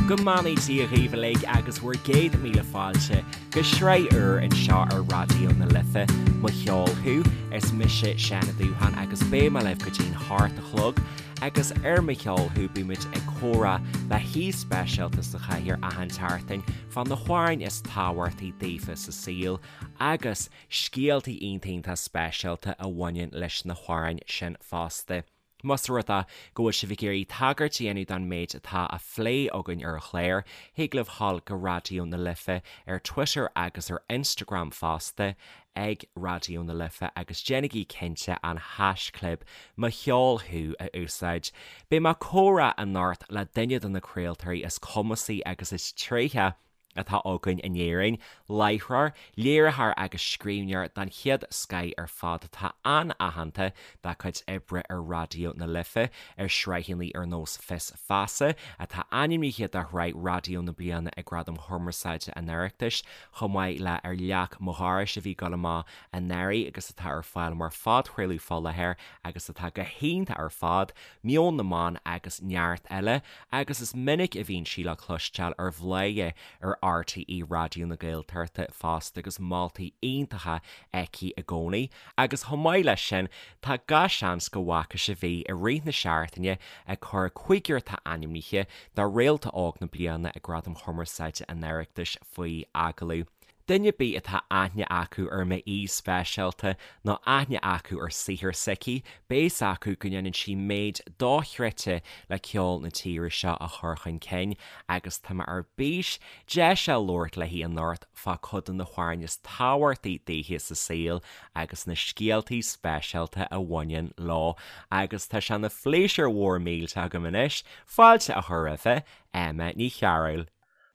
Go mbeannaí Dia dhaoibh uilig agus bhur gcéad míle fáilte go sraith úr anseo ar Raidió na Life, Mo Cheol Thú. Is mise Seán Ó Dúcháin agus beidh mé libh go dtí'n hocht a chlog agus ar Mo Cheol Thú bímid ag comhrá le haoi speisialta sa chathaoir achan tseachtain fá na hamhráin is tábhachtaí daofa sa saol agus scéaltaí iontach iontach speisialta a bhaineann leis na hamhráin sin fosta. Más rud é go bhfuil sibh ag iarraidh tagairt a dhéanamh don méid atá á phlé againn ar an chlár, thig libh dhul go Raidió na Life ar Twitter agus ar Instagram fosta ag Raidió na Life agus déanaigí cinnte an haischlib Mo Cheol Thú a úsáid. Beidh mé ag comhrá anocht le duine de na craoltóirí is cumasaí agus is tréithe atá againn in Éirinn, láithreoir, léiritheoir agus scríbhneoir den chéad scoith ar fad atá an-aitheanta dá cuid oibre ar Raidió na Life, ar shraitheanna ar nós Fios Feasa, atá ainmnithe do Shraith Raidió na Bliana ag Gradaim Chumarsáide an Oireachtais, chomh maith le Ar Leac Mo Dhorais a bhí ag dul amach anuraidh agus atá ar fáil mar phodchraoladh fá láthair agus atá go hiontach ar fad, Meon na mBan agus neart eile. agus is minic a bhíonn sí le cloisteáil ar Bhladhaire ar RTÉ Raidió na Gaeltachta fosta agus moltaí iontacha aici i gcónaí. Agus chomh maith leis sin, tá gach seans go bhfaca sibh í i rith na seachtaine ag cur cúigear atá ainmnithe do Réalta Óg na Bliana ag Gradaim Chumarsáide an Oireachtais faoi agallamh. Duine ar bith atá aithne acu ar m'aoi speisialta nó aithne acu ar saothar s'aici, beidh fhios acu go ndéanann sí méid dochreidte le ceol na tíre seo a chur chun cinn agus tá mé ar bís deis a labhairt léi anocht fá cuid de na hamhráin is tábhachtaí daoithe sa saol agus na scéaltaí speisialta a bhaineann leo agus tá sé ina phléisiúr mhór millteach agam anois fáilte a chur roimhe, Emma Ní Chearúil.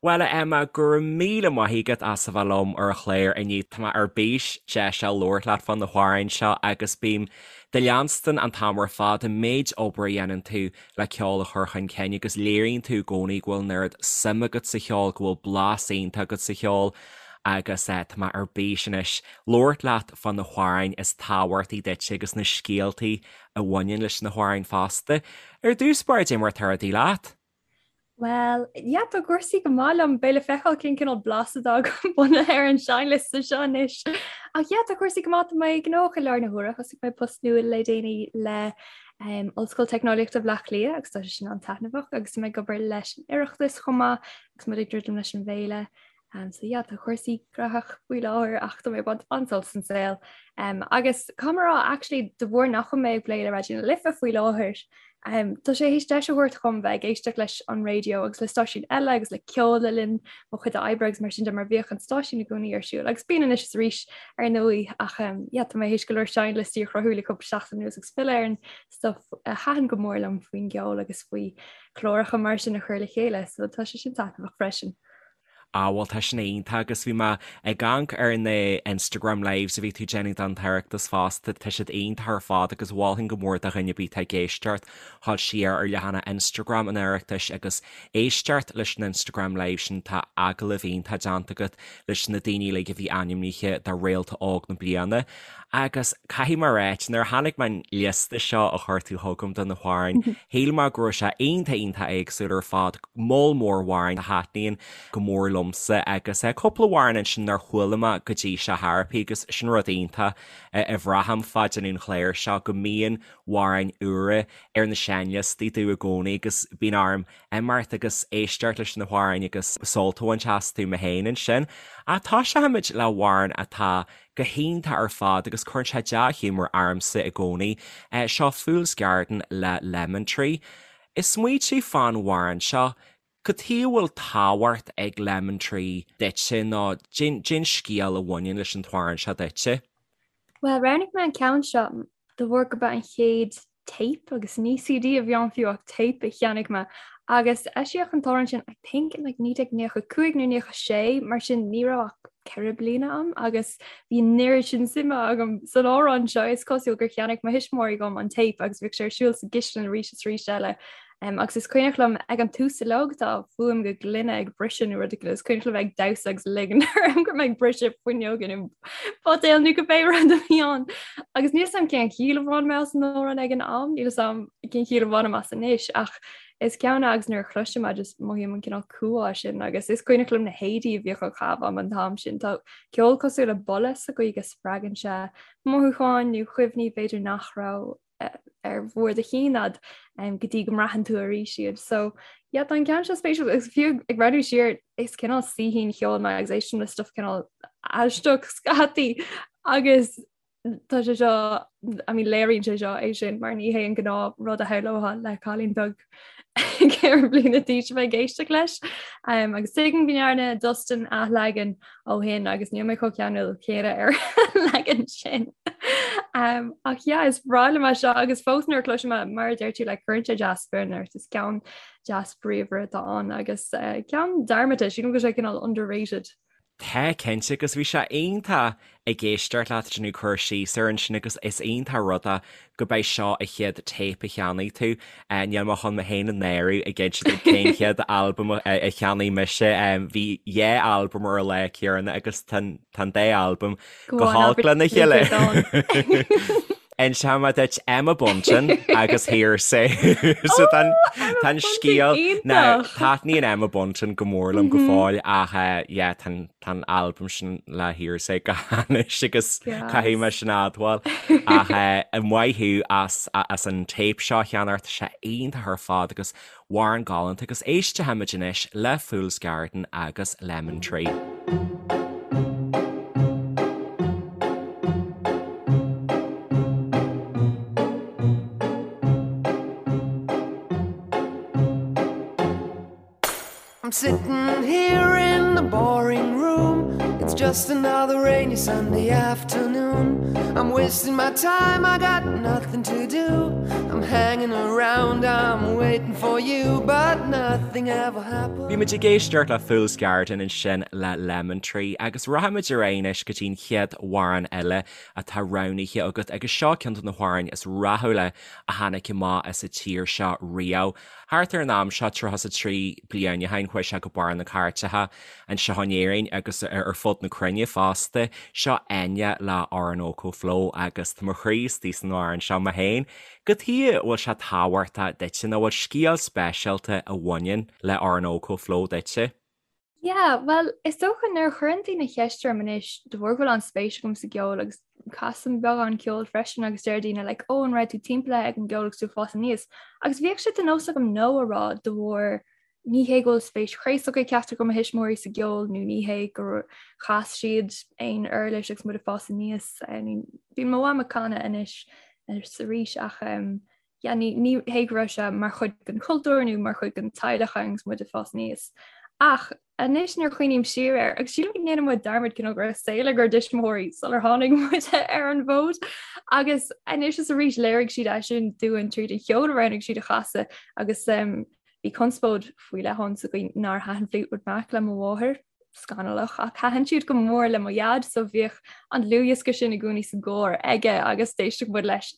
Bhuel, a Emma, go raibh míle maith agat as a bheith liom ar an chlár inniu. Tá mé ar bís deis a labhairt leat fá na hamhráin seo agus bím do leanstan an t-am ar fad, an méid obair a dhéanann tú le ceol a chur chun cinn agus léiríonn tú i gcónaí go bhfuil an oiread suim agat sa cheol, go bhfuil blas iontach agat sa cheol agus tá mé ar bís anois labhairt leat fá na hamhráin is tábhachtaí duit agus na scéaltaí a bhaineann leis na hamhráin fosta. Ar dtús báire, cad é mar atá rudaí leat? Well, yeah, tá cúrsaí go maith liom, beidh le feiceáil cén cineál blas atá agam bunaithe ar an seinnliosta seo anois. Ach yeah, tá cúrsaí go maith, tá mé gnóthach i láthair na huaire, thosaigh mé post nua le déanaí le um, Ollscoil Teicneolaíochta Bhaile Átha Cliath agus tá sé sin an-taitneamhach agus tá mé ag obair leis an Oireachtas chomh maith agus muid ag druidim leis an bhféile. Um, so yeah, tá cúrsaí graitheach faoi láthair ach tá mé ag baint an-sult as an saol. Um, agus caithfidh mé a rá actually de bharr nach bhfuil mé ag plé le Raidió na Life faoi láthair, um, tá sé théis deis a thabhairt dhom bheith ag éisteacht leis an raidió agus le stáisiúin eile agus le ceol le linn mo chuid oibre agus mar sin de mar bhíodh an stáisiún i gcónaí ar siúl agus bíonn anois is arís ar ndóigh ach um, yeah, tá mé théis go leor seinnliostaí a chruthú le cúpla seachtain anuas agus filleadh ar an stuff a thaitin go mór liom faoin gceol agus faoi chláracha mar sin a chur le chéile, so tá sé sin taitneamhach freisin. Ah bhuel tá sin iontach agus bhí mé ag amharc ar na Instagram lives a bhí tú déanamh don tOireachtas fosta, tá siad iontach ar fad agus mholfainn go mór do dhuine ar bith atá ag éisteacht dhul siar ar leathanach Instagram an Oireachtais agus éisteacht leis an Instagram live sin, tá agallamh iontach déanta agat leis na daoine uilig a bhí ainmnithe do Réalta Óg na Bliana. Agus caithfidh mé a ráit, nuair a chonaic mé an liosta seo a chuir tú chugam do na hamhráin, shíl mé go raibh sé iontach iontach éagsúil ar fad, moll mór amhrán a thaitníonn go mór liomsa agus cúpla amhrán ansin nár chuala mé go dtí seo tharapi agus sin rud iontach a bhraithim fá déanamh an chláir seo, go mbíonn amhráin úra ar na seinnliostaí domh i gcónaí agus bíonn orm imeacht agus éisteacht leis na hamhráin agus sult a bhaint astu mé féin ansin. Ach toiseochaimid le hamhrán atá go hiontach ar fad agus cuireann sé dea-ghiúmar ormsa i gcónaí. Seo Fool's Garden le Lemon Tree. Ag smaointiú fán amhrán seo, cad chuige a bhfuil tábhacht ag Lemon Tree duitse nó cén scéal a bhaineann leis an t-amhrán seo duitse? Bhuel, roghnaigh mé an ceann seo de bharr gurb é an chéad tape agus ní CD a bhí ann fiú ach tape a cheannaigh mé agus eisíodh an t-amhrán sin I think in like 1995 nó 96 mar sin ní raibh ach 4 bliana agam agus bhí an oiread sin suime agam san amhrán seo is cosúil gur cheannaigh mo thuismitheoirí dhom an tape agus bhíodh sé ar siúl sa gcistin arís is arís eile. Agus is cuimhneach liom ag an tús uilig tá fuaim go gloine ag briseadh nó rud éigin, is cuimhneach liom ag damhsa agus ligean orm go raibh mé ag briseadh fuinneoga nó buidéal nó cibé rud a bhí ann. Agus níl 'fhios a'm cén chiall a bhain mé as an amhrán ag an am, níl 'fhios a'm cén chiall a bhainim as anois ach is ceann é agus nuair a chloisim é just mothaím an cineál cumhá sin agus is cuimhneach liom na héadaí a bhíodh á chaitheamh a'm an t-am sin. Tá ceol cosúil le boladh sa gcaoi go spreagann sé mothúcháin nó cuimhní b'fhéidir nach raibh ar bharr do chinn a'd go dtí go mbraitheann tú arís iad. So yeah, tá an ceann seo spéisiúil agus fiú ag breathnú siar is cineál saoithín cheoil mé agus éistim le stuff cineál aisteach scaití agus tá sé seo I mean léiríonn sé seo é sin mar ní hé an gnáth rud a shamhlófá le cailín beag 4 bliana d'aois a bheith ag éisteacht leis. Um, agus tuigim go ndearna Dustin athleagan ó shin agus níl mé chomh ceanúil céanna ar an leagan sin. Um, ach yeah, is breá liom é seo agus fós nuair a chloisim é mar a deir tú le cuireann sé dea-spiorad ort is ceann deas bríomhar atá ann agus uh, ceann dearmadta sílim go bhfuil sé cineál underrated. Tá, cinnte, agus bhí sé iontach ag éisteacht leat ag déanamh cur síos air ansin agus is iontach rud é go b'é seo an chéad téip a cheannaigh tú. Níl mé chun mé féin a náiriú ag inse duit cén chéad albam a cheannaigh mise. Bhí dhá albam ar an lá céanna agus tá an dá albam go holc lena chéile. Inseoidh mé duit Emma Bunton agus Hear'Say. So tá an scéal now taitníonn Emma Bunton go mór liom go fóill ach yeah tá an albam sin le Hear'Say go hainnis agus caithfidh mé sin a admháil. Ach maith thú as as an téip seo a cheannacht, tá sé iontach ar fad agus Amhrán galánta agus éistfimid anois le Fool's Garden agus Lemon Tree. I'm sitting here in the boring room. It's just another rainy Sunday afternoon. I'm wasting my time, I got nothing to do. I'm hanging around, I'm waiting for you, but nothing ever happens. Bhí muid ag éisteacht le Fool's Garden ansin le Lemon Tree agus rachaimid ar aghaidh anois go dtí an chéad amhrán eile atá roghnaithe agat agus seo ceann de na hamhráin is rathúla a tháinig amach as an tír seo riamh. Thart ar an am seo, 33 bliain ó shin, chuaigh sé go barr na cairteacha anseo in Éirinn agus ar fud na cruinne fosta. Seo Enya le Orinoco Flow agus tá mo chroí istigh san amhrán seo mé féin. Cad chuige a bhfuil sé tábhachtach duitse nó bhfuil scéal speisialta a bhaineann le Orinoco Flow duitse? Yeah, bhuel, is dócha nuair a chuireann daoine ceist orm anois de bharr go bhfuil an-spéis agam sa gceol agus casaim beagán ceoil freisin agus deir daoine like, oh, an raibh tú timpeallaithe ag an gceol agus tú ag fás aníos. Agus bhíodh sé de nós agam no a rá de bharr ní hé go bhfuil spéis chraosach ag ceachtar de mo thuismitheoirí sa gceol nó ní hé gur chas siad aon uirlis agus muid ag fás aníos. Bíonn mo mham ag canadh anois is arís ach um, yeah, ní, ní hé go raibh sé mar chuid den chultúr nó mar chuid den teaghlach agus muid ag fás aníos. Ach anois nuair a chuimhním siar air, agus sílim go ndéanann muid dearmad cineál go raibh saol ag ár dtuismitheoirí sular tháinig muid ar an bhfód. Agus anois is arís léirigh siad é sin dúinn tríd an cheol a roghnaigh siad a chasadh agus um, bhí conspóid faoi leith ann sa gcaoi nár thaitin Fleetwood Mac le mo mháthair scannalach ach thaitin siad go mór le mo dhaid so bhíodh an dlúthdhiosca sin i gcónaí sa gcarr aige agus d'éisteadh muid leis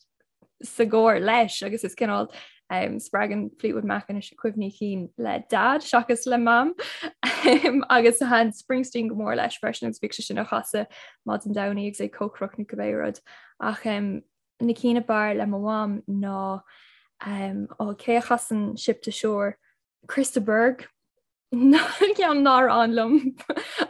sa gcarr leis agus is cineál um, spreagann Fleetwood Mac anois cuimhní cinn le dad seachas le mam um, agus thaitin Springsteen go mór leis freisin agus bhíodh sé sin á chasadh maidin Domhnaigh agus é ag cócaireacht nó cibé rud ach um, na cinn ab fhearr le mo mham ná um, ó cé a chasann Ship to Shore Chris de Burgh ceann nár fhan liom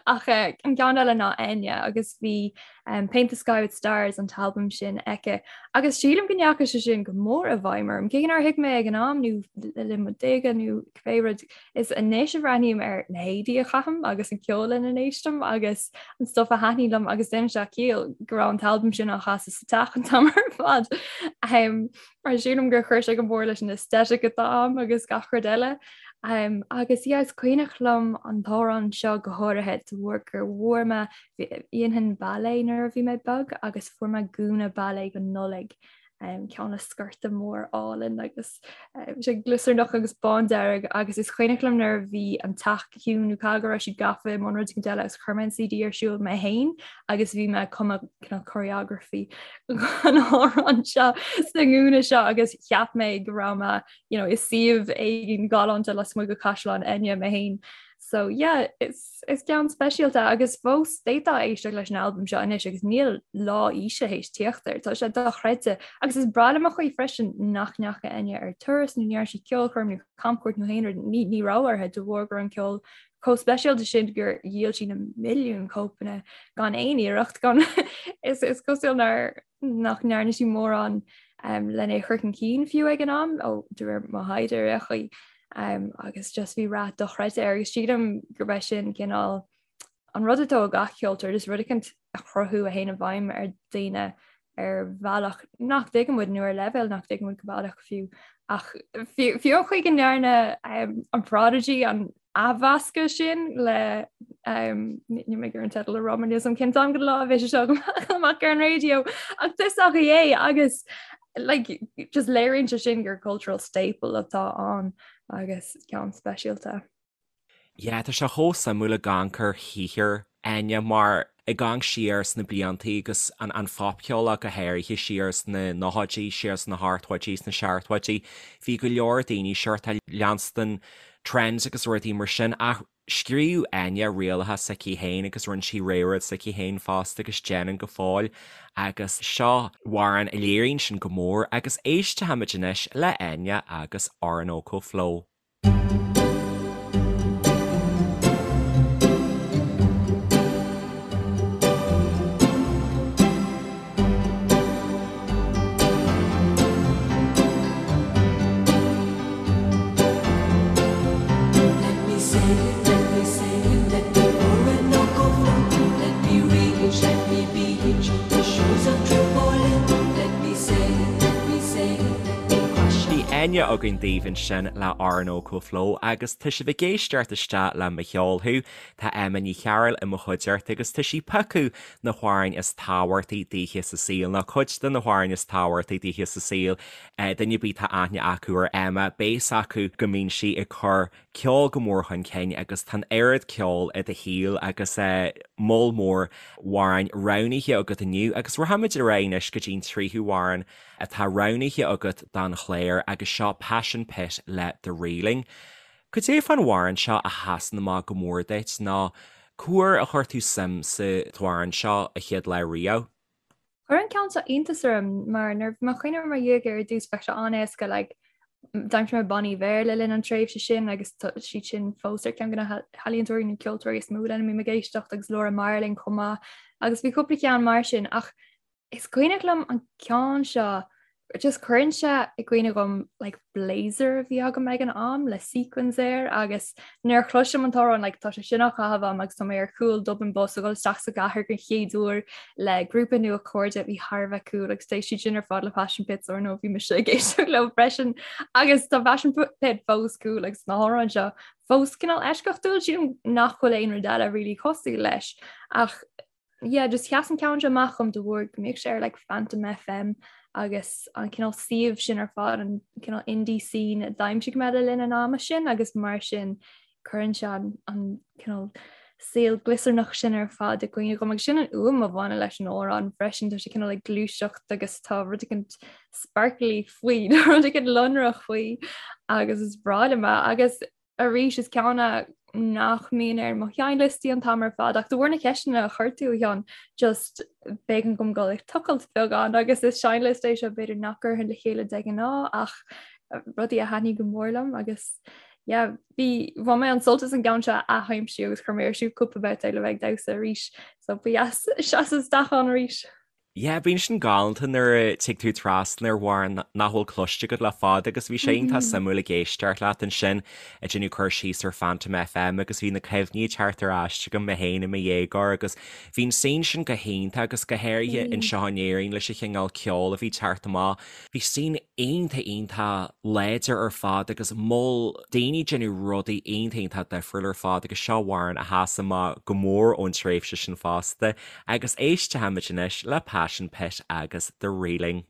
ach eh, an ceann eile ná Enya agus bhí um, Paint the Sky with Stars an t-albam sin aici agus sílim go ndeachaigh sé sin go mór i bhfeidhm orm. Cé nár thuig mé ag an am nó le linn mo déaga nó cibé rud is anois a bhreathnaím ar na héadaí a chaithim agus an ceol lena n-éistim agus an stuff a thaitníonn liom agus déanann sé ciall go raibh an t-albam sin á chasadh sa teach an t-am ar fad. Um, mar sílim gur chuir sé go mór leis an aesthetic atá agam agus gach rud eile. Um, agus yeah, is cuimhneach liom an t-amhrán seo go háirithe de bharr gur bhfuair mé dhéanfainn ballet nuair a bhí mé beag agus fuair mé gúna ballet don Nollaig. Ceann le sciorta mór álainn agus sé gliosarnach agus bándearg agus is cuimhneach liom nuair a bhí an teach ciúin nó caithfidh go raibh siad gafa i mbun rud éigin eile agus chuir mé an CD ar siúl mé féin agus bhí mé ag cumadh cineál choreography an amhrán seo sa ngúna seo agus cheap mé go raibh mé you know, i suíomh éigin galánta lasmuigh de Chaisleán Enya mé féin. So yeah, is, is ceann speisialta agus fós d'fhéadfá éisteacht leis an albam seo anois agus níl lá aoise théis tíocht air. Tá sé dochreidte agus is breá liom an chaoi freisin nach ndeachaigh Enya ar turas nó ní dhearna sí ceolchoirm nó camchuairt nó aon rud ní, ní raibh uirthi de bharr go raibh an ceol chomh speisialta sin gur dhíol sí na milliúin cóipeanna gan aon iarracht gan is, is cosúil nár nach ndearna sí mórán um, lena é chur chun cinn fiú ag an am ó de réir mo thaighde ar aon chaoi um, agus just bhí rath dochreidte air agus sílim gurb é sin cineál an rud atá ag gach ceoltóir just rud éicint a chruthú a théann i bhfeidhm ar daoine ar bhealach nach dtuigeann muid nó ar leibhéal nach dtuigeann muid go baileach fiú ach fiú an chaoi go ndearna um, an Prodigy an athmheascadh sin le níl mé ag iarraidh an teideal a rá mar níl a fhios agam cén t-am den lá a bheidh sé seo amach ar an raidió ach is dócha é agus like, just léiríonn sé sin gur cultural staple atá ann agus ceann speisialta. Yeah, tá sé chomh suimiúil ag amharc ar shaothar Enya mar ag amharc siar sna bliantaí agus an an phopcheol ach go háirithe siar sna nóchaidí, siar sna hochtóidí, sna seachtóidí, bhí go leor daoine sórt ag leanstan trends agus rudaí mar sin ach scríobh Enya rialacha s'aici féin agus rinne sí rud s'aici féin fosta agus déanann go fóill agus seo amhrán a léiríonn sin go mór agus éistfimid anois le Enya agus Orinoco Flow. Bhí Enya againn daoibh ansin le Orinoco Flow agus tá sibh ag éisteacht isteach le Mo Cheol Thú. Tá Emma Ní Chearúil i mo chuideachta agus tá sí ag piocadh na hamhráin is tábhachtaí daoithe sa saol, nó cuid de na hamhráin is tábhachtaí daoithe sa saol. Duine ar bith atá aithne acu ar Emma, beidh a fhios acu go mbíonn sí ag cur ceol go mór chun cinn agus tá an oiread ceoil i do shaol agus moll mór amhráin roghnaithe agat inniu agus rachaimid ar aghaidh anois go dtí an tríú hamhrán atá roghnaithe agat don chlár agus seo Passion Pit le The Reeling. Cad é fán amhrán seo a sheasann amach go mór duit nó cá huair a chuir tú suim sa t-amhrán seo an chéad lá riamh? Chuir an ceann seo iontas orm mar nuair a bhí mé ag cuimhneamh i mo dhiaidh ar dtús bheadh sé an-éasca like d'aimsigh mé bannaí Béarla le linn an tréimhse sin agus tá siad sin fós ar ceann de na healaíontóirí nó ceoltóirí is mó lena mbím ag éisteacht agus Laura Marling chomh maith agus bhí cúpla ceann mar sin ach Is cuimhneach liom an ceann seo just cuireann sé i gcuimhne dhom like blazer a bhí agam ag an am le sequins air agus nuair a chloisim an t-amhrán like tá sé sin á chaitheamh agam agus tá mé ar chúl Dublin Bus ag dul isteach sa gcathair den chéad uair le grúpa nua cairde a bhí thar a bheith cool agus d'éist siad sin ar fad le Passion Pit so ar ndóigh bhí mise ag éisteacht leo freisin agus tá Passion Pit fós cool agus na hamhráin seo fós cineál eisceachtúil sílim nach bhfuil aon rud eile really cosúil leis ach yeah, just sheas an ceann seo amach dhom de bharr go mbíodh sé ar like Phantom FM agus an cineál suíomh sin ar fad an cineál indie scene a d'aimsigh mé le linn an ama sin agus mar sin cuireann sé an, an cineál saol gliosarnach sin ar fad i gcuimhne dhom agus sin an fhuaim a bhaineann leis an amhrán freisin tá sé cineál ag gluaiseacht agus tá rud éicint sparkly faoi rud éicint lonrach faoi agus is breá liom é agus arís is ceann é nach mbíonn ar mo sheinnliostaí an t-am ar fad ach de bharr na ceisteanna a chuir tú a Sheáin just b'éigean dom dul ag tochailt beagán agus is seinnliosta é seo b'fhéidir nach gcuirfinn le chéile de ghnáth ach rudaí a thaitníonn go mór liom agus yeah bhí bhain mé an sult as an gceann seo a athaimsiú agus chuir mé ar siúl cúpla babhta le bheith ag damhsa arís so ba dheas seasamh isteach ann arís. Yeah, bíonn sin galánta nuair a tig tú trasna ar amhrán nach bhfuil cloiste agat le fada agus bhí sé iontach suimiúil ag éisteacht leat ansin ag déanamh cur síos ar Phantom FM agus bhí na cuimhní ag teacht ar ais agam mé féin i mo dhéagóir agus bhí an scene sin go hiontach agus go háirithe anseo in Éirinn leis an chineál ceoil a bhí ag teacht amach. Bhí scene iontach iontach láidir ar fad agus moll daoine ag déanamh rudaí iontach iontach difriúil ar fad agus seo amhrán a sheas amach go mór ón tréimhse sin fosta. Agus éistfimid anois le Passion Pit agus The Reeling.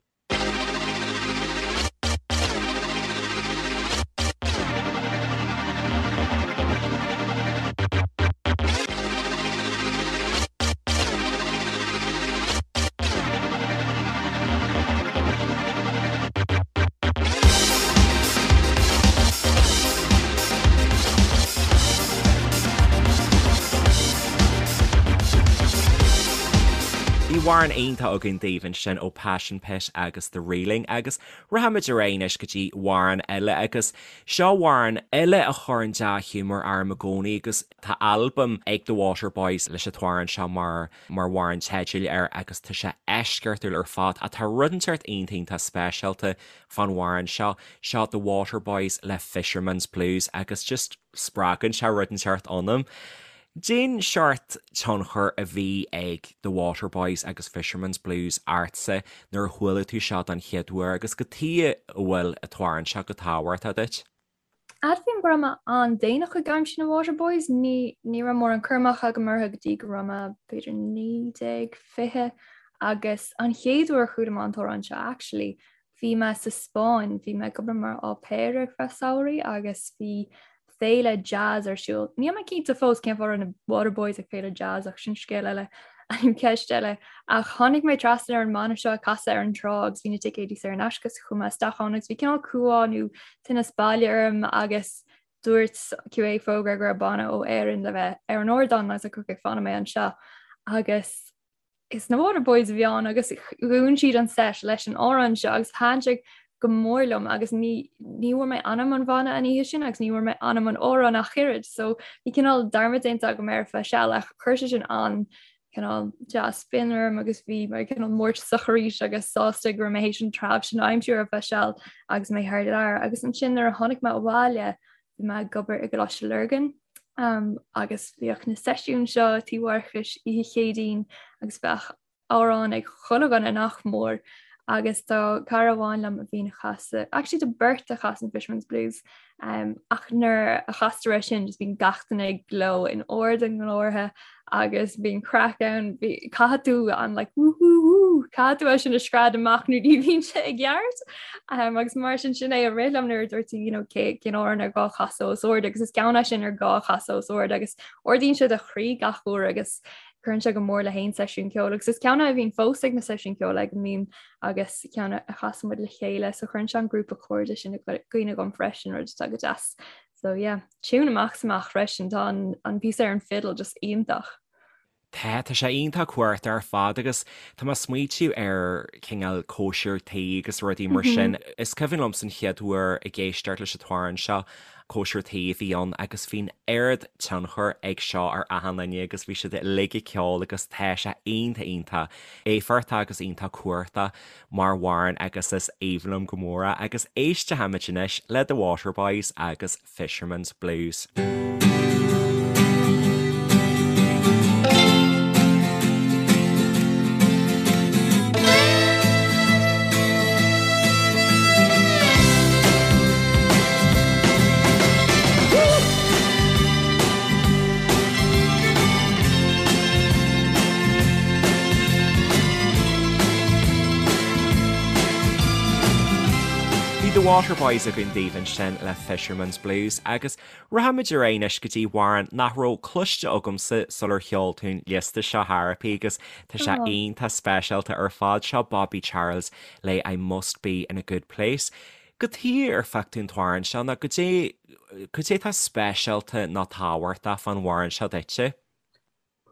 amhrán iontach againn daoibh ansin ó Passion Pit agus The Reeling agus rachaimid ar aghaidh anois go dtí amhrán eile agus seo amhrán eile a chuireann dea-ghiúmar orm i gcónaí agus tá albam ag The Waterboys leis an t-amhrán seo mar mar amhrán teidil air agus tá sé eisceachtúil ar fad ach tá rud inteacht iontach iontach speisialta fán amhrán seo. Seo The Waterboys le Fisherman's Blues agus just spreagann sé rud inteacht ionam. Cén seort tionchar a bhí ag The Waterboys agus Fisherman's Blues ortsa nuair a chuala tú seo don chéad uair agus cad chuige a bhfuil an t-amhrán seo chomh tábhachtach duit? Admhaím go raibh mé an-déanach ag aimsiú na Waterboys, ní ní raibh mórán cur amach agam orthu go dtí go raibh mé b'fhéidir 19, 20 agus an chéad uair a chuala mé an t-amhrán seo actually Bhí mé sa Spáinn, bhí mé ag obair mar au pair ar feadh samhraidh agus bhí féile jazz ar siúl. Níl mé cinnte fós cén fáth a raibh na Waterboys ag féile jazz ach sin scéal eile, ceist eile. Ach tháinig mé trasna ar an mbanna seo ag casadh ar an trá agus bhí na ticéidí saor in aisce so chuaigh mé isteach ann agus bhí cineál cumhá nó tinneas baile orm agus dúirt QA fógra go raibh banna ó Éirinn le bheith ar an ardán agus like okay fanfaidh mé anseo agus is na Waterboys a bhí ann agus dhún siad an set leis an amhrán seo agus thaitin sé go mór liom agus ní ní bhfuair mé ainm an bhanna an oíche sin agus ní bhfuair mé ainm an amhráin ach oiread so bhí cineál dearmad déanta agam ar feadh seal ach chuir sé sin an cineál dea-spion orm agus bhí mé cineál mórtasach arís agus sásta go raibh mé théis an treabh sin a aimsiú ar feadh seal agus mé thar lear agus ansin nuair a tháinig mé abhaile Bhí mé ag obair i gColáiste Lurgan agus bhíodh na seisiúin seo Tí Mharcais oíche Chéadaoin agus bheadh amhrán ag chuile dhuine nach mór agus tá cara amháin liom a bhíonn ag casadh, actually tá beirt a chasann Fisherman's Blues um, ach nuair a chastar é sin just bíonn gach duine ag gleo in ard a nglórtha agus bíonn craic ann, caithfidh tú an like woo woo woo, caithfidh tú é sin a scread amach nó ní bhíonn sé i gceart. Um, agus mar sin sin é a rith liom nuair a dúirt tú you know, cé cén amhrán ar gá chasadh os ard agus is ceann é sin ar gá chasadh os ard agus ardaíonn sé do chroí gach uair agus cuireann sé go mór le haon seisiún ceoil agus is ceann é a bhíonn fós ag na seisiúin ceoil ag a mbím agus ceann a chasann muid le chéile so cuireann sé an grúpa cairde sin i gcuimhne dhom freisin rud atá go deas. So yeah, tune amach is amach freisin, tá an, an píosa ar an fiddle just iontach. Tá, tá sé iontach cumhachtach ar fad agus tá mé ag smaoitiú ar cineál cóisir tí agus rudaí mar sin. Is cuimhin liomsa an chéad uair ag éisteacht leis an t-amhrán seo, cóisir tí a bhí ann agus bhí an oiread tionchar ag seo ar achan duine agus bhí siad uilig ag ceol agus tá sé iontach iontach éifeachtach agus iontach cumhachtach mar amhrán agus is aoibhinn liom go mór é agus éistfimid anois le The Waterboys agus Fisherman's Blues. Bhí The Waterboys againn daoibh ansin le Fisherman's Blues agus rachaimid ar aghaidh anois go dtí amhrán nach raibh cloiste agamsa sular sheol tú an liosta seo Therapy agus tá sé iontach speisialta ar fad. Seo Bobby Charles le I Must Be In A Good Place. Cad chuige ar phioc tú an t-amhrán seo nó cad é cad é atá speisialta nó tábhachtach fán amhrán seo duitse?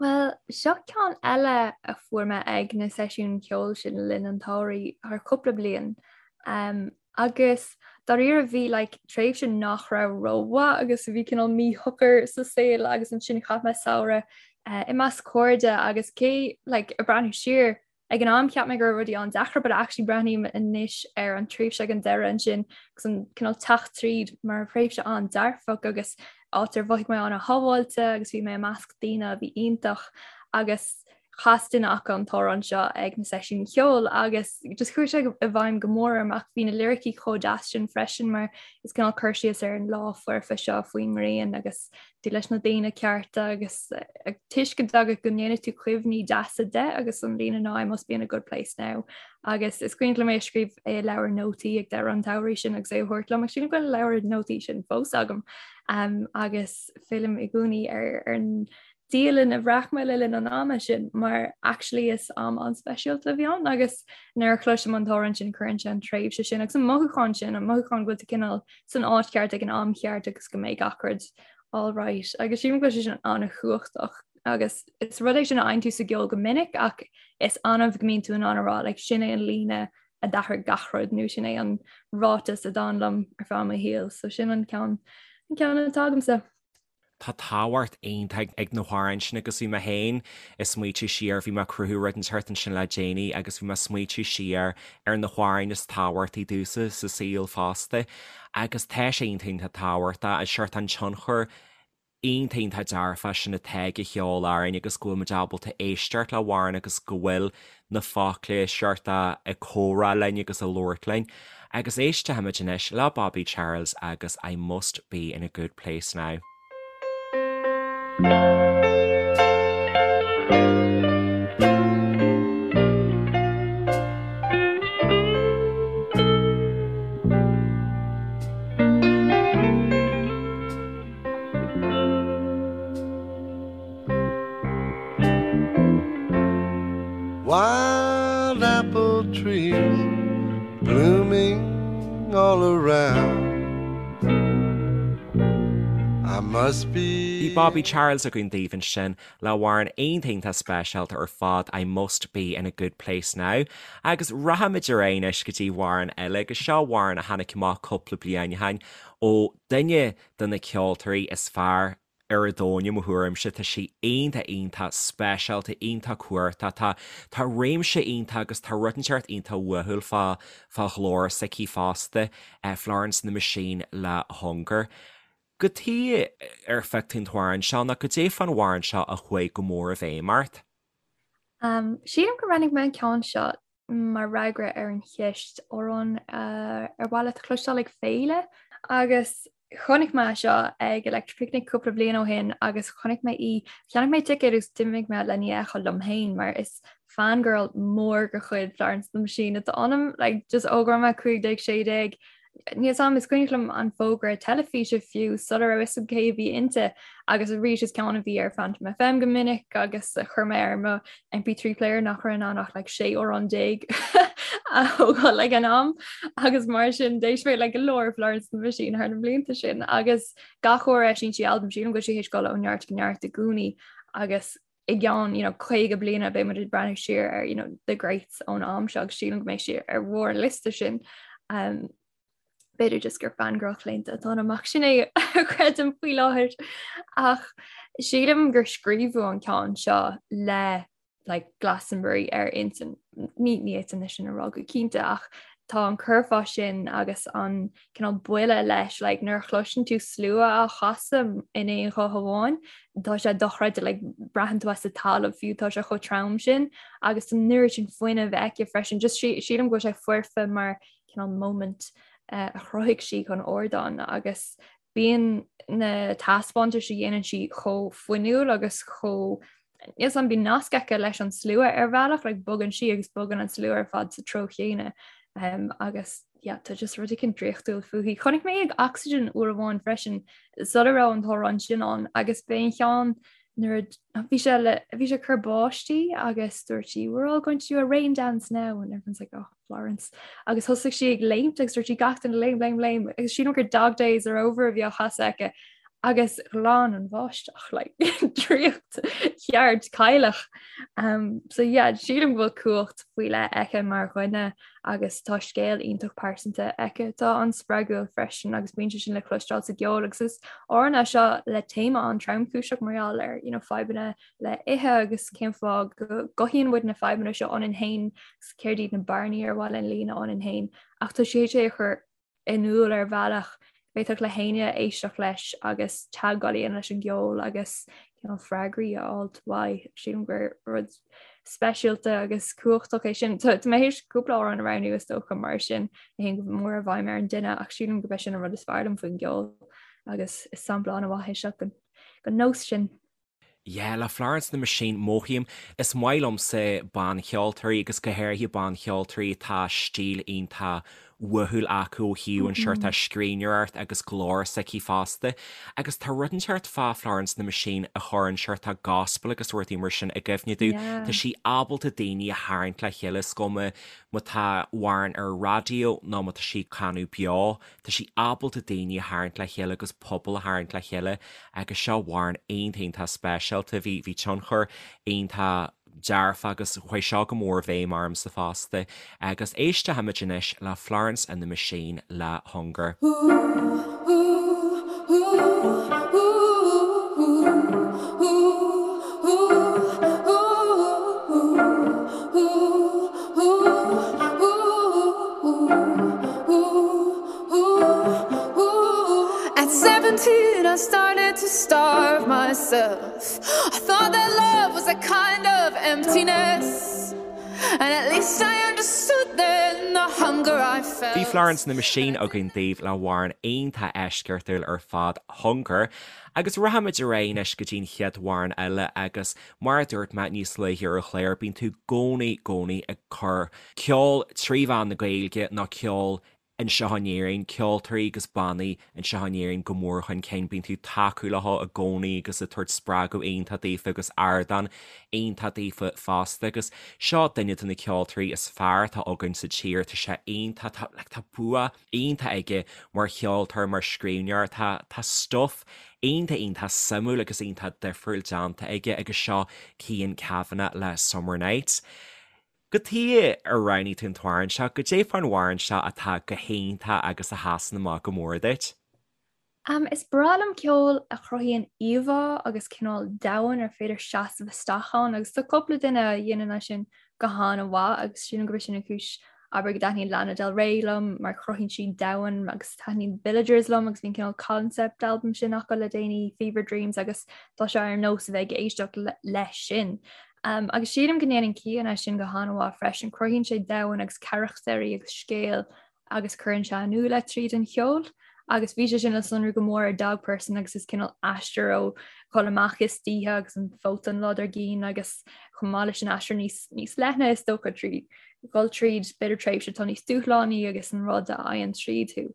Bhuel, seo ceann eile a fuair mé ag na seisiúin cheoil sin le linn an tsamhraidh thar cúpla bliain. Um, agus dáiríre bhí like, tréimhse nach raibh rómhaith agus bhí cineál míshocair sa saol agus ansin chaith mé samhradh uh, i measc cairde agus cé like, ag breathnú siar Ag an am cheap mé go raibh rudaí an-deacair but actually breathnaím anois ar an tréimhse ag an deireadh ansin agus an cineál teacht tríd mar thréimhse an-dearfach agus áit ar mhothaigh mé an-shábháilte agus bhí mé i measc daoine a bhí iontach agus chas duine acu an t-amhrán seo ag na seisiúin cheoil agus just chuaigh sé i bhfeidhm go mór orm ach bhí na liricí chomh deas sin freisin mar is cineál cur síos ar an lá foirfe seo faoin ngrian agus tú leis na daoine cearta agus tuiscint agat go ndéanfaidh tú cuimhní deasa de agus an líne ná I must be in a good place now. Agus is cuimhin liom é a scríobh i leabhar nótaí ag deireadh an tsamhraidh sin agus é a thabhairt liom, agus sílim go bhfuil an leabhar nótaí sin fós agam. Um, agus fillim i gcónaí ar, ar an dialann a bhreac mé le linn an ama sin mar actually is am an-speisialta a bhí ann agus nuair a chloisim an t-amhrán sin cuireann sé an tréimhse sin agus an mothúchán sin an mothúchán go bhfuil tú cineál san áit cheart ag an am cheart agus go mbeidh gach rud all right. Agus sílim go bhfuil sé sin an-chumhachtach agus is rud é sin a fhaigheann tú sa gceol go minic ach is annamh go mbíonn tú in ann a rá like sin é an líne a d'athraigh gach rud nó sin é an ráiteas a d'fhan liom ar feadh mo shaoil so sin an ceann an ceann atá agamsa. Tá tábhacht iontach ag na hamhráin sin agus bhí mé féin ag smaoitiú siar, bhí mé ag cruthú rud inteacht ansin le déanaí agus bhí mé ag smaoitiú siar ar na hamhráin is tábhachtaí domhsa sa saol fosta agus tá sé iontach iontach tábhachtach, an seort an tionchar iontach iontach dearfach sin atá ag an cheol orainn agus go bhfuil muid ábalta éisteacht le hamhrán agus go bhfuil na focla seort ag comhrá linn agus ag labhairt linn. Agus éistfimid anois le Bobby Charles agus I Must Be In A Good Place Now. Wild apple trees blooming all around I must be Bhí Bobby Charles againn daoibh ansin le hamhrán iontach iontach speisialta ar fad I Must Be In A Good Place Now agus rachaimid ar aghaidh anois go dtí amhrán eile agus seo amhrán a tháinig amach cúpla bliain ó shin ó duine de na ceoltóirí is fearr ar an domhan i mo thuairimse. Tá sí iontach iontach speisialta, iontach cumhachtach. Tá tá réimse iontach agus tá rud inteacht iontach uathúil fá fá ghlór s'aici fosta, Florence and the Machine le Hunger. Cad chuige ar phioc tú an t-amhrán seo nó cad é fán amhrán seo a chuaigh go mór i bhfeidhm ort? Sílim gur roghnaigh mé an ceann seo mar fhreagra ar an cheist amhrán ar mhaith leat a chloisteáil ag féile agus chonaic mé seo ag Electric Picnic cúpla bliain ó shin agus chonaic mé í, cheannaigh mé ticéad agus d'imigh mé lena fheiceáil liom féin mar is fangirl mór de chuid Florence and the Machine atá ionam, like just ó go raibh mé 15, 16 Níl 'fhios a'm, is cuimhneach liom an fógra teilifíse fiú sula raibh 'fhios a'm cé a bhí inti agus arís is ceann a bhí ar Phantom FM go minic agus a chuir mé ar mo MP3 player nach raibh in ann ach like 16 amhrán a thógáil ag an am agus mar sin d'éist mé le go leor Florence and the Machine thar na blianta sin agus gach uair a eisíonn sí albam sílim go bhfuil sí théis dul ó neart go neart i gcónaí agus i gceann you know, 50 bliana beidh muid ag breathnú siar ar you know, the greats ón am seo agus sílim go mbeidh sí ar bharr an liosta sin. Um, b'fhéidir just gur fangirl chlaonta atá ionam ach sin é a chreidim faoi láthair ach sílim gur scríobhadh an ceann seo le like, Glastonbury ar intinn ní ní fhéadfainn é sin a rá go cinnte ach tá an curfá sin agus an cineál buille leis, like, nuair a chloiseann tú slua á chasadh in aon ghuth amháin, tá sé dochreidte, like, braitheann tú as an talamh fiú, tá sé chomh trom sin agus an oiread sin fuinnimh aici freisin, just sílim go bhfuil sé foirfe mar cineál moment uh, a chruthaigh sí chun ardáin agus bíonn na taispeántais a dhéanann sí chomh fuinniúil agus chomh Níl 'fhios a'm, bíonn nasc aici leis an slua ar bhealach, like bogann sí agus bogann an slua ar fad sa treo chéanna um, agus yeah, tá just rud éicint draíochtúil fúithi. Chonaic mé ag Oxygen uair amháin freisin sula raibh an t-amhrán sin ann agus b'é an cheann nuair a bhí sé le bhí sé cur báistí agus dúirt sí we're all going to do a rain dance now and everyone's like oh Florence agus thosaigh sí ag léimt agus dúirt sí gach duine léim léim léim agus sílim gur dog days are over a bhí á chasadh aici agus ghlan an bháisteach like draíocht cheart cailleach. Um, so yeah, sílim go bhfuil cumhacht faoi leith aici mar dhuine agus tá scéal iontach pearsanta aici atá an-spreagúil freisin agus bíonn sé sin le cloisteáil sa gceol agus is amhrán é seo le téama an-tromchúiseach mar gheall ar you know, fadhbanna le ithe agus cén fáth go gcothaíonn muid na fadhbanna seo ionainn féin agus céard iad na bearnaí ar mhaith linn líonadh ionainn féin ach tá sí é a chur in iúl ar bhealach go bhféadfadh le héinne éisteacht leis agus teagmháil a dhéanamh leis an gceol agus cineál freagraí a fháilt uaidh. Sílim gur rud speisialta agus cumhachtach é sin. Tá mé théis cúpla amhrán a roghnú is dócha mar sin a théann go mór i bhfeidhm ar an duine ach sílim gurb é sin an rud is fearr liom faoin gceol agus is sampla an-mhaith é seo den nós sin. Yeah, le Florence and the Machine, mothaím, is maith liomsa bancheoltóirí agus go háirithe bancheoltóirí atá stíl iontach uathúil acu ó thaobh an seort scríbhneoireacht agus glór s'aici fosta. Agus tá rud inteacht fá Florence and the Machine a chuireann seort gospel agus rudaí mar sin i gcuimhne domh. Tá sí ábalta daoine a tharraingt le chéile, is cuma má tá amhrán ar an raidió nó má tá sí ag canadh beo. Tá sí ábalta daoine a tharraingt le chéile agus pobal a tharraingt le chéile agus seo amhrán iontach iontach speisialta. Bhí bhí tionchar iontach. dearfa agus chuaigh seo go mór i bhfeidhm ormsa fosta. Agus éistfimid anois le Florence and the Machine le Hunger. At 17 I started to starve myself I thought that love was a kind of emptiness And at least I understood then the hunger I felt. Bhí Florence and the Machine againn daoibh le hamhrán iontach eisceachtúil ar fad, Hunger. Agus rachaimid ar aghaidh anois go dtí an chéad amhrán eile agus mar a dúirt mé níos luaithe ar an chlár, bíonn tú i gcónaí, gcónaí ag cur ceol trí mheán na Gaeilge nó ceol anseo in Éirinn, ceoltóirí agus bannaí anseo in Éirinn go mór chun cinn. Bíonn tú ag tacú leo i gcónaí agus ag tabhairt spreagadh iontach daofa agus ardán iontach daofa fosta agus seo duine de na ceoltóirí is fearr atá againn sa tír. Tá sé iontach, tá, like, tá bua iontach aige mar cheoltóir, mar scríbhneoir, tá, tá stuff iontach, iontach suimiúil agus iontach difriúil déanta aige agus seo Cian Kavanagh le Summer Nights. Cad chuige ar roghnaigh tú an t-amhrán seo, goidé fán amhrán seo atá go hiontach agus a sheasann amach go mór duit? Is breá liom ceol a chruthaíonn íomhá agus cineál domhan ar féidir seasamh isteach ann agus tá cúpla duine a dhéanann é sin go han-mhaith agus sílim gurb é sin an chúis abair go dtaitníonn Lana Del Rey liom mar cruthaíonn sí domhan agus taitníonn Villagers liom agus bhí an cineál concept album sin acu le déanaí Fever Dreams agus tá sé ar nós a bheith ag éisteacht leis sin. Agus sílim go ndéanann Cian é sin go han-mhaith freisin, cruthaíonn sé domhan agus carachtair agus scéal agus cuireann sé in iúl é tríd an cheol. Agus bhí sé sin le sonrú go mór ar Dog Person agus is cineál aistear ó dhul amach istoíche agus an phóta an lá dár gcionn agus chomh maith leis an aistear níos, níos leithne is dócha trí dhul tríd b'fhéidir tréimhse atá níos dúshlánaí agus an rud a fhaigheann tríd thú.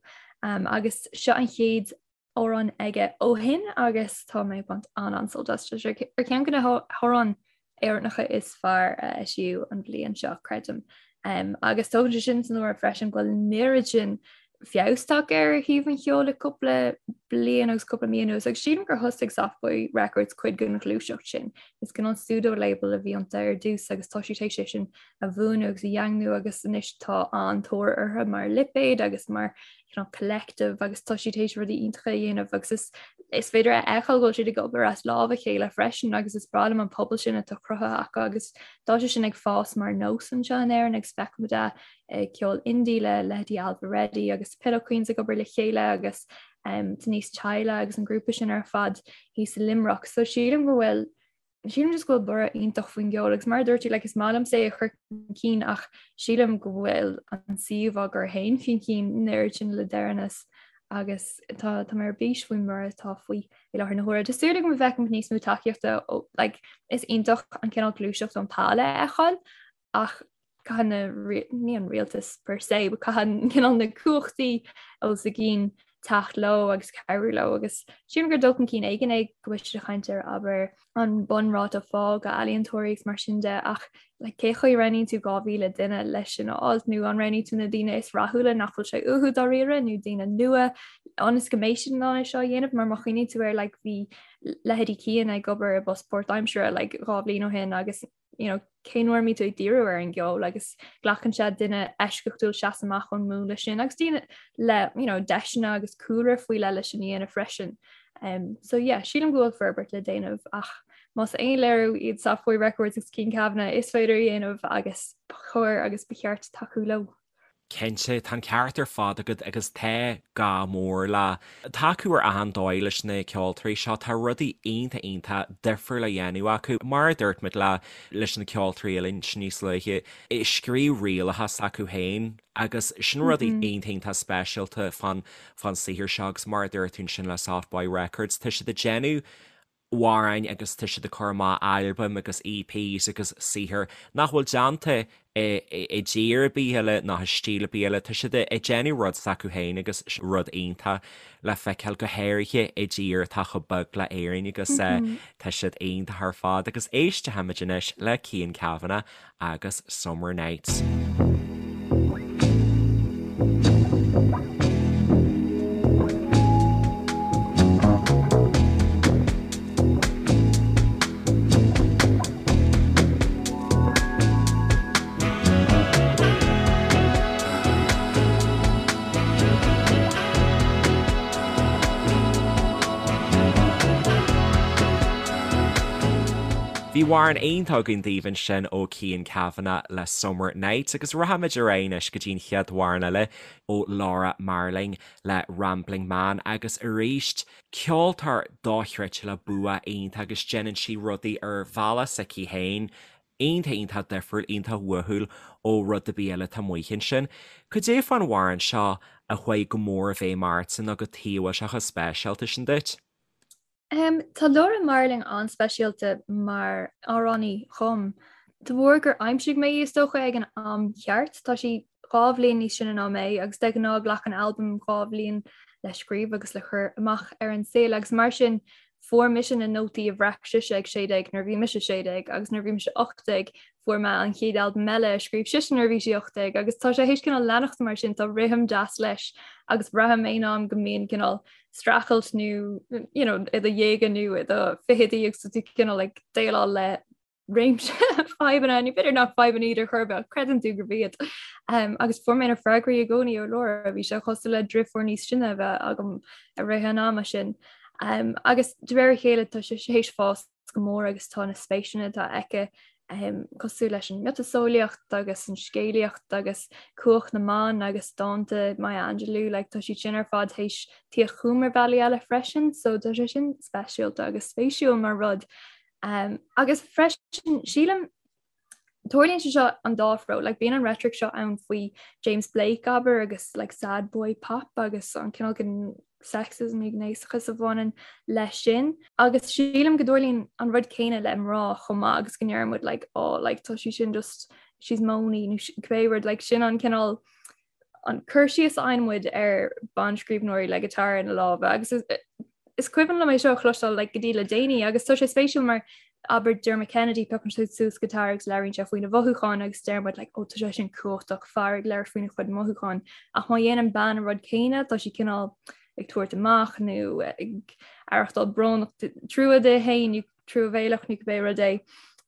Um, agus seo an chéad amhrán aige ó shin agus tá mé ag baint an-an-sult as. Tá sé ar cheann de na hamhráin Éireannacha is fearr a eisíodh an bhliain seo, creidim. Um, agus tógann sé sin san áireamh freisin go bhfuil an oiread sin feabhas tagtha ar thaobh an cheoil le cúpla bliain agus cúpla mí anuas, agus sílim gur thosaigh Soft Boy Records cuid den ghluaiseacht sin. Is cineál pseudo label a bhí iontu ar dtús agus tá siad théis é sin a bhuanú agus a dhaingniú agus anois tá an-tóir orthu mar lipéad agus mar you know, collective agus tá siad théis rudaí iontacha a dhéanamh agus is is féidir a fheiceáil go bhfuil siad ag obair as lámh a chéile freisin agus is breá liom an pobal sin atá cruthaithe acu agus tá sé sin ag fás mar nós anseo in Éirinn agus feicimid é ag ceol indie le leithéidí Ailbhe Reddy agus Pillow Queens ag obair le chéile agus um, Denise Chaila agus an grúpa sin ar fad thíos i Limerick. So sílim go bhfuil Sílim just go bhfuil borradh iontach faoin gceol agus mar a dúirt tú like, is maith liomsa é a chur chun cinn ach sílim go bhfuil an suíomh á gcur féin chun cinn an oiread sin le deireanas agus tá tá mé ar bís faoin mborradh atá faoi i láthair na huaire. Tá súil agam go bhfeicfimid níos mó tacaíochta ó like, is iontach an cineál gluaiseacht ón Pale a fheiceáil ach caithfidh na, ní an rialtas per se, but caithfidh cineál na cumhachtaí os a gcionn teacht leo agus cabhrú leo agus sílim gur dul chun cinn éigin é go bhfuil siad ag caint ar abair an bunráta phá d'ealaíontóirí agus mar sin de ach like, cé chaoi a roghnaíonn tú 2,000 duine leis sin a fháilt nó an roghnaíonn tú na daoine is rathúla nach bhfuil sé uathu dáiríre nó daoine nua ionas go mbeidh siad in ann é seo a dhéanamh mar má chuimhníonn tú air like, bhí leithéidí Cian ag obair i bpost páirtaimseartha like, 2 bhliain ó shin agus you know, cén uair a mbíonn tú ag díriú ar an gceol agus glacann sé duine eisceachtúil seasamh amach ón múnla sin agus daoine le you know, deiseanna agus cúlra faoi leith leis sin a dhéanamh freisin. Um, so yeah, sílim go bhfuil forbairt le déanamh ach más aon léiriú iad Soft Boy Records agus Cian Kavanagh is féidir a dhéanamh agus ba chóir agus ba cheart tacú leo. Cinnte, tá an ceart ar fad agat agus tá gá mór le tacú ar achan dóigh leis na ceoltóirí seo. Tá rudaí iontach iontach difriúil á dhéanamh acu. Mar a dúirt muid le leis na ceoltóirí eile ansin níos luaithe, ag scríobh rialacha s'acu féin agus sin rudaí iontach iontach speisialta fán fán saothar seo agus mar a dúirt tú ansin le Soft Boy Records, tá siad ag déanamh amhráin agus tá siad ag cur amach albaim agus EPs agus saothar nach bhfuil déanta i dtír ar bith eile ná i stíl ar bith eile. Tá siad ag déanamh rud s'acu féin agus sin rud iontach le feiceáil, go háirithe i dtír atá chomh beag le Éirinn agus tá siad iontach ar fad. Agus éistfimid anois le Cian Kavanagh agus Summer Nights. Bhí amhrán iontach againn daoibh ansin ó Cian Kavanagh le Summer Nights agus rachaimid ar aghaidh anois go dtí an chéad amhrán eile ó Laura Marling le Rambling Man agus arís ceoltóir dochreidte le bua iontach agus déanann sí rudaí ar bhealach s'aici féin iontach iontach difriúil, iontach uathúil ó rud ar bith eile atá amuigh ansin. Cad é fán amhrán seo a chuaigh go mór i bhfeidhm ortsa nó cad chuige a bhfuil sé chomh speisialta sin duit? Tá Laura Marling an-speisialta mar amhránaí dhom, de bharr gur aimsigh mé í is dócha ag an am cheart. Tá sí 2 bhliain níos sine ná mé agus de ghnáth glacann albam 2 bhliain le scríobh agus le cur amach ar an saol agus mar sin fuair mise na nótaí a bhreac sise ag 16 nuair a bhí mise 16 agus nuair a bhí mise 18 fuair mé an chéad albam eile a scríobh sise nuair a bhí sí 18 agus tá sé théis cineál leanacht mar sin, tá rithim deas leis agus braithim aon am go mbíonn cineál streachailt nó you know, i do dhéaga nó i do fichidí agus tú cineál ag déileáil le réimse fadhbanna nó b'fhéidir nach fadhbanna iad ar chor ar bith ach creideann tú gurb iad. Um, agus fuair mé na freagraí i gcónaí ó Laura, bhí sé cosúil le deirfiúr níos sine a bheith agam i rith an ama sin. Um, agus de réir a chéile tá sé théis fás go mór agus tá na spéiseanna atá aici cosúil leis an miotaseolaíocht agus an scéalaíocht agus cumhacht na mban agus dánta Maya Angelou, like, tá siad sin ar fad théis tíocht chugam ar bhealaí eile freisin, so tá sé sin speisialta agus spéisiúil mar rud. Um, agus freisin sílim Tarlaíonn sé seo an dá threo, like bíonn an rhetoric seo ann faoi James Blake abair agus like sad boy pop agus an cineál den sexism nó gnéasachas a bhaineann leis sin. Agus sílim go dtarlaíonn an rud céanna le mná chomh maith agus go ndeir muid like oh like tá sí sin just she's moany nó cibé rud like sin an cineál an cur síos a fhaigheann muid ar banscríbhneoirí le guitar ina lámha agus is cuimhin liom é seo a chloisteáil like, go dtí le déanaí agus tá sé spéisiúil mar abair Dermot Kennedy piocann sé suas guitar agus labhraíonn sé faoina mhothúcháin agus deir muid like, oh, tá sé sin cumhachtach fear ag labhairt faoina chuid mothúcháin ach má dhéanann bean an rud céanna tá sí cineál ag tabhairt amach nó ag aireachtáil brónach trua di féin nó truamhéalach nó cibé rud é.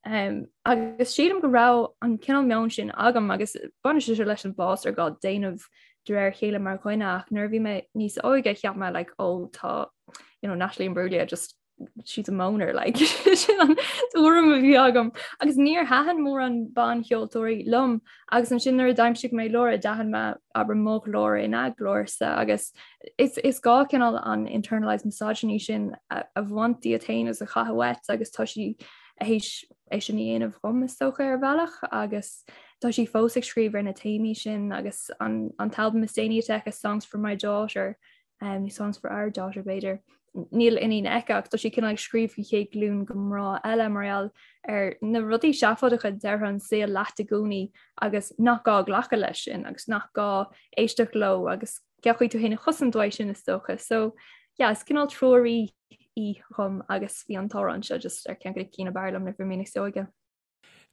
Um, agus sílim go raibh an cineál meon sin agam agus baineann sé seo leis an bhfás ar gá déanamh de réir a chéile mar dhuine ach nuair a bhí mé níos óige cheap mé like, oh, tá you know, Natalie Imbruglia just she's a moaner like sin an tuairim a bhí agam agus níor thaitin mórán bancheoltóirí liom agus ansin nuair a d'aimsigh mé Laura d'aithin mé abair mo ghlór ina glórsa agus is, is gá cineál an internalized misogyny sin a, a bhaint díot féin agus a chaitheamh uait agus tá sí théis é sin a dhéanamh dhom is dócha ar bhealach agus tá sí fós ag scríobh ar na téamaí sin agus an, an t-albam is déanaí atá aici Songs for My Daughter um, nó Songs for Our Daughter b'fhéidir. Níl iníon aici ach tá sí cineál ag scríobh faoi chéad glúin de mhná eile mar gheall ar na rudaí seafóideacha a deir an saol leat i gcónaí agus nach gá glacadh leis sin agus nach gá éisteacht leo agus cén chaoi tú féin a chosaint uaidh sin is dócha. So yeah, is cineál treoraí í dhom agus bhí an t-amhrán seo just ar ceann de na cinn ab fhearr liom nuair a bhí mé níos óige.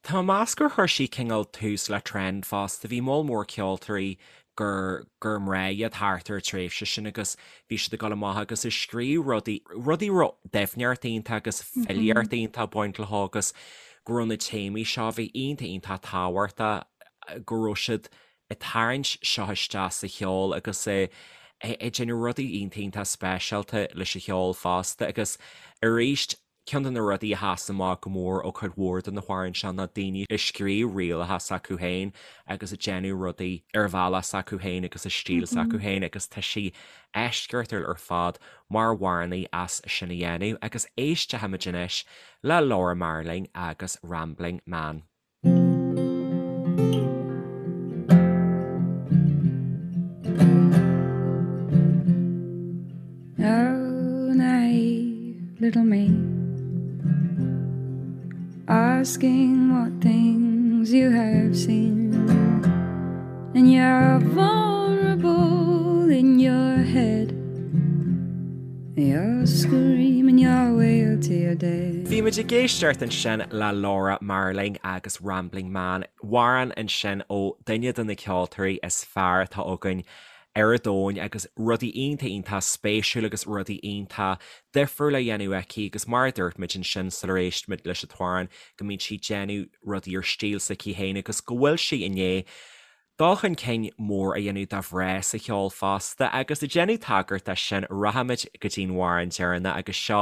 Tá mé ag meas gur chuir sí cineál tús le trend fosta. Bhí moll mór ceoltóirí gur gur mná iad thart ar an tréimhse sin agus bhí siad ag dul amach agus ag scríobh rudaí, rudaí a raibh doimhneacht iontu agus filíocht iontach ag baint leo agus go raibh na téamaí seo a bhí iontach iontach tábhachtach go raibh siad ag tarraingt seo isteach sa cheol agus ag déanamh rudaí iontach iontach speisialta leis an cheol fosta agus arís ceann de na rudaí a sheas amach go mór ó chuid mhór de na hamhráin seo ná daoine ag scríobh rialacha s'acu féin agus ag déanamh rudaí ar bhealach s'acu féin agus i stíl s'acu féin agus tá sí eisceachtúil ar fad mar amhránaí as sin a dhéanamh agus éistfimid anois le Laura Marling agus Rambling Man. Oh, naive little me Asking what things you have seen And you're vulnerable in your head You're screaming your way to your death. Bhí muid ag éisteacht ansin le Laura Marling agus Rambling Man, amhrán ansin ó duine de na ceoltóirí is fearr atá againn ar an domhain agus rudaí iontach iontach spéisiúil agus rudaí iontach difriúil á dhéanamh aici agus mar a dúirt muid ansin sular éist muid leis an t-amhrán go mbíonn sí ag déanamh rudaí ar stíl s'aici féin agus go bhfuil sí i ndiaidh. Dul chun cinn mór a dhéanamh do mhná sa cheol fosta agus ag déanamh tagairt dó sin rachaimid go dtí'n amhrán deireanach agus seo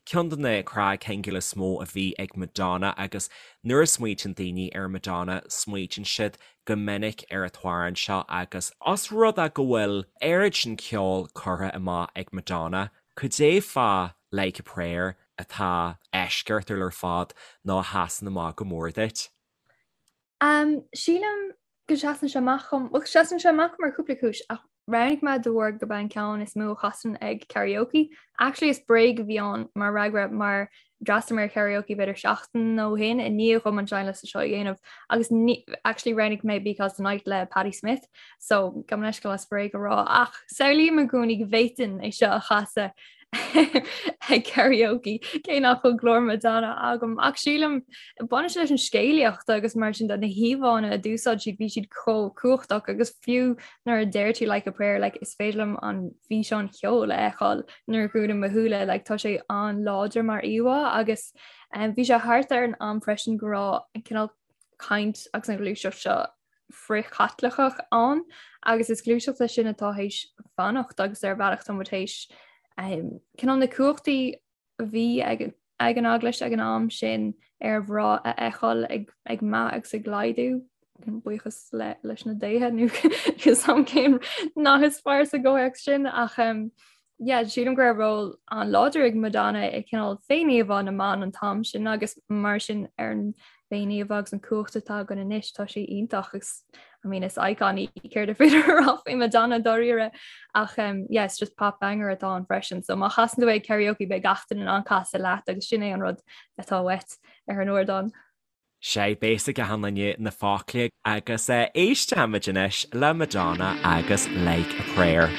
ceann de na cnagshingil is mó a bhí ag Madonna agus nuair a smaoitíonn daoine ar Madonna smaoitíonn siad go minic ar an t-amhrán seo agus os rud é go bhfuil oiread sin ceoil curtha amach ag Madonna, cad é fá Like a Prayer atá eisceachtúil ar fad nó a sheasann amach go mór duit? Um, sílim go seasann sé amach dom, bhuel seasann sé amach mar chúpla cúis ach roghnaigh mé de bharr gurb é an ceann is mó a chasann ag karaoke. Actually is bréag a bhí ann mar fhreagra mar d'fhreastail mé ar karaoke b'fhéidir seachtain ó shin i ndiaidh dhom an seinnliosta seo a dhéanamh agus ní, actually roghnaigh mé Because the Night le Patti Smith so gabh mo leithscéal as bréag a rá ach samhlaím i gcónaí go bhféadfainn é seo a chasadh ag karaoke cé nach bhfuil glór Madonna agam ach sílim baineann sé leis an scéalaíocht agus mar sin de na híomhánna a d'úsáid siad bhí siad chomh cumhachtach agus fiú nuair a deir tú like a prayer like is féidir liom an físeán ceoil a fheiceáil nuair a dhúnaim mo shúile like tá sé an-láidir mar íomhá agus um, bhí sé thart ar an am freisin go raibh an cineál caint agus an ghluaiseacht seo frith-Chaitliceach ann agus is gluaiseacht é sin atá théis fanacht agus ar bhealach tá muid théis um, cineál na cumhachtaí a bhí ag, ag an eaglais ag an am sin ar mhná a fheiceáil ag, ag meath agus ag laghdú buíochas le, leis na déithe nó sam cén nath is fearr sa gcomhthéacs sin ach um, yeah, sílim go raibh ról an-láidir ag Madonna i cineál féiníomhá na mban an t-am sin agus mar sin ar an bhféiníomhá agus an cumhacht atá againn anois tá sé iontach agus I mean is icon í céard is féidir a rá faoi Madonna dáiríre ach um, yeah, it's just pop banger atá ann freisin so má chasann tú é ag karaoke beidh gach duine in ann casadh leat agus sin é an rud atá uait ar an ardán. Sea, beidh a fhios ag achan duine na focla agus éistfimid anois le Madonna agus Like a Prayer.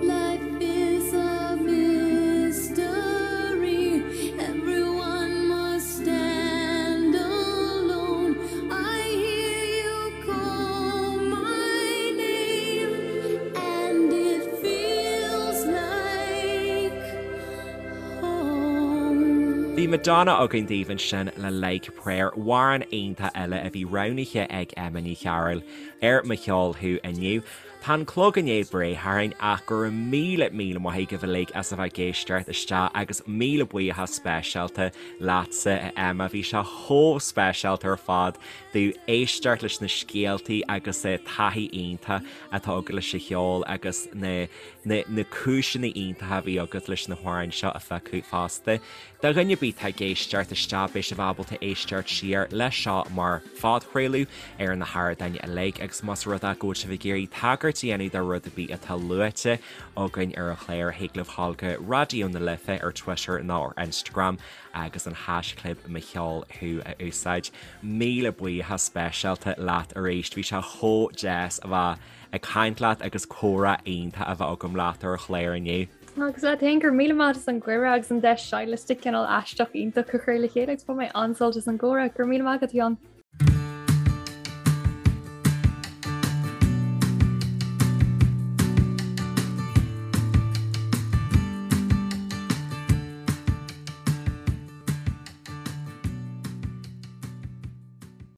Life is a mystery, everyone must stand alone. I hear you call my name, and it feels like home. Bhí Madonna againn daoibh ansin le Like a Prayer, amhrán iontach eile a bhí roghnaithe ag Emma Ní Chearúil ar Mo Cheol Thú inniu. Tá an clog i ndiaidh breith orainn ach go raibh míle míle maith agaibh uilig as a bheith ag éisteacht isteach agus míle buíochas speisialta leatsa a Emma, bhí sé chomh speisialta ar fad domh éisteacht leis na scéaltaí agus taithí iontach atá agat leis an cheol agus na na na cúiseanna iontacha a bhí agat leis na hamhráin seo a phiocadh fosta. Do dhuine ar bith atá ag éisteacht isteach beidh sibh ábalta éisteacht siar leis seo mar phodchraoladh ar na hardáin uilig agus más rud é go bhfuil sibh ag iarraidh tagairt a dhéanamh do rud ar bith atá luaite againn ar an chlár thig libh dhul go Raidió na Life ar Twitter nó ar Instagram agus an haischlib Mo Cheol Thú a úsáid. Míle buíochas speisialta leat arís, bhí sé chomh deas a bheith ag caint leat agus comhrá iontach a bheith agam leat ar an chlár inniu. Agus leat féin, go raibh míle maith as an gcuireadh agus an deis seinnliosta cineál aisteach iontach a chur le chéile agus bhain mé an-sult as an gcomhrá. Go raibh míle maith agat, a Sheáin.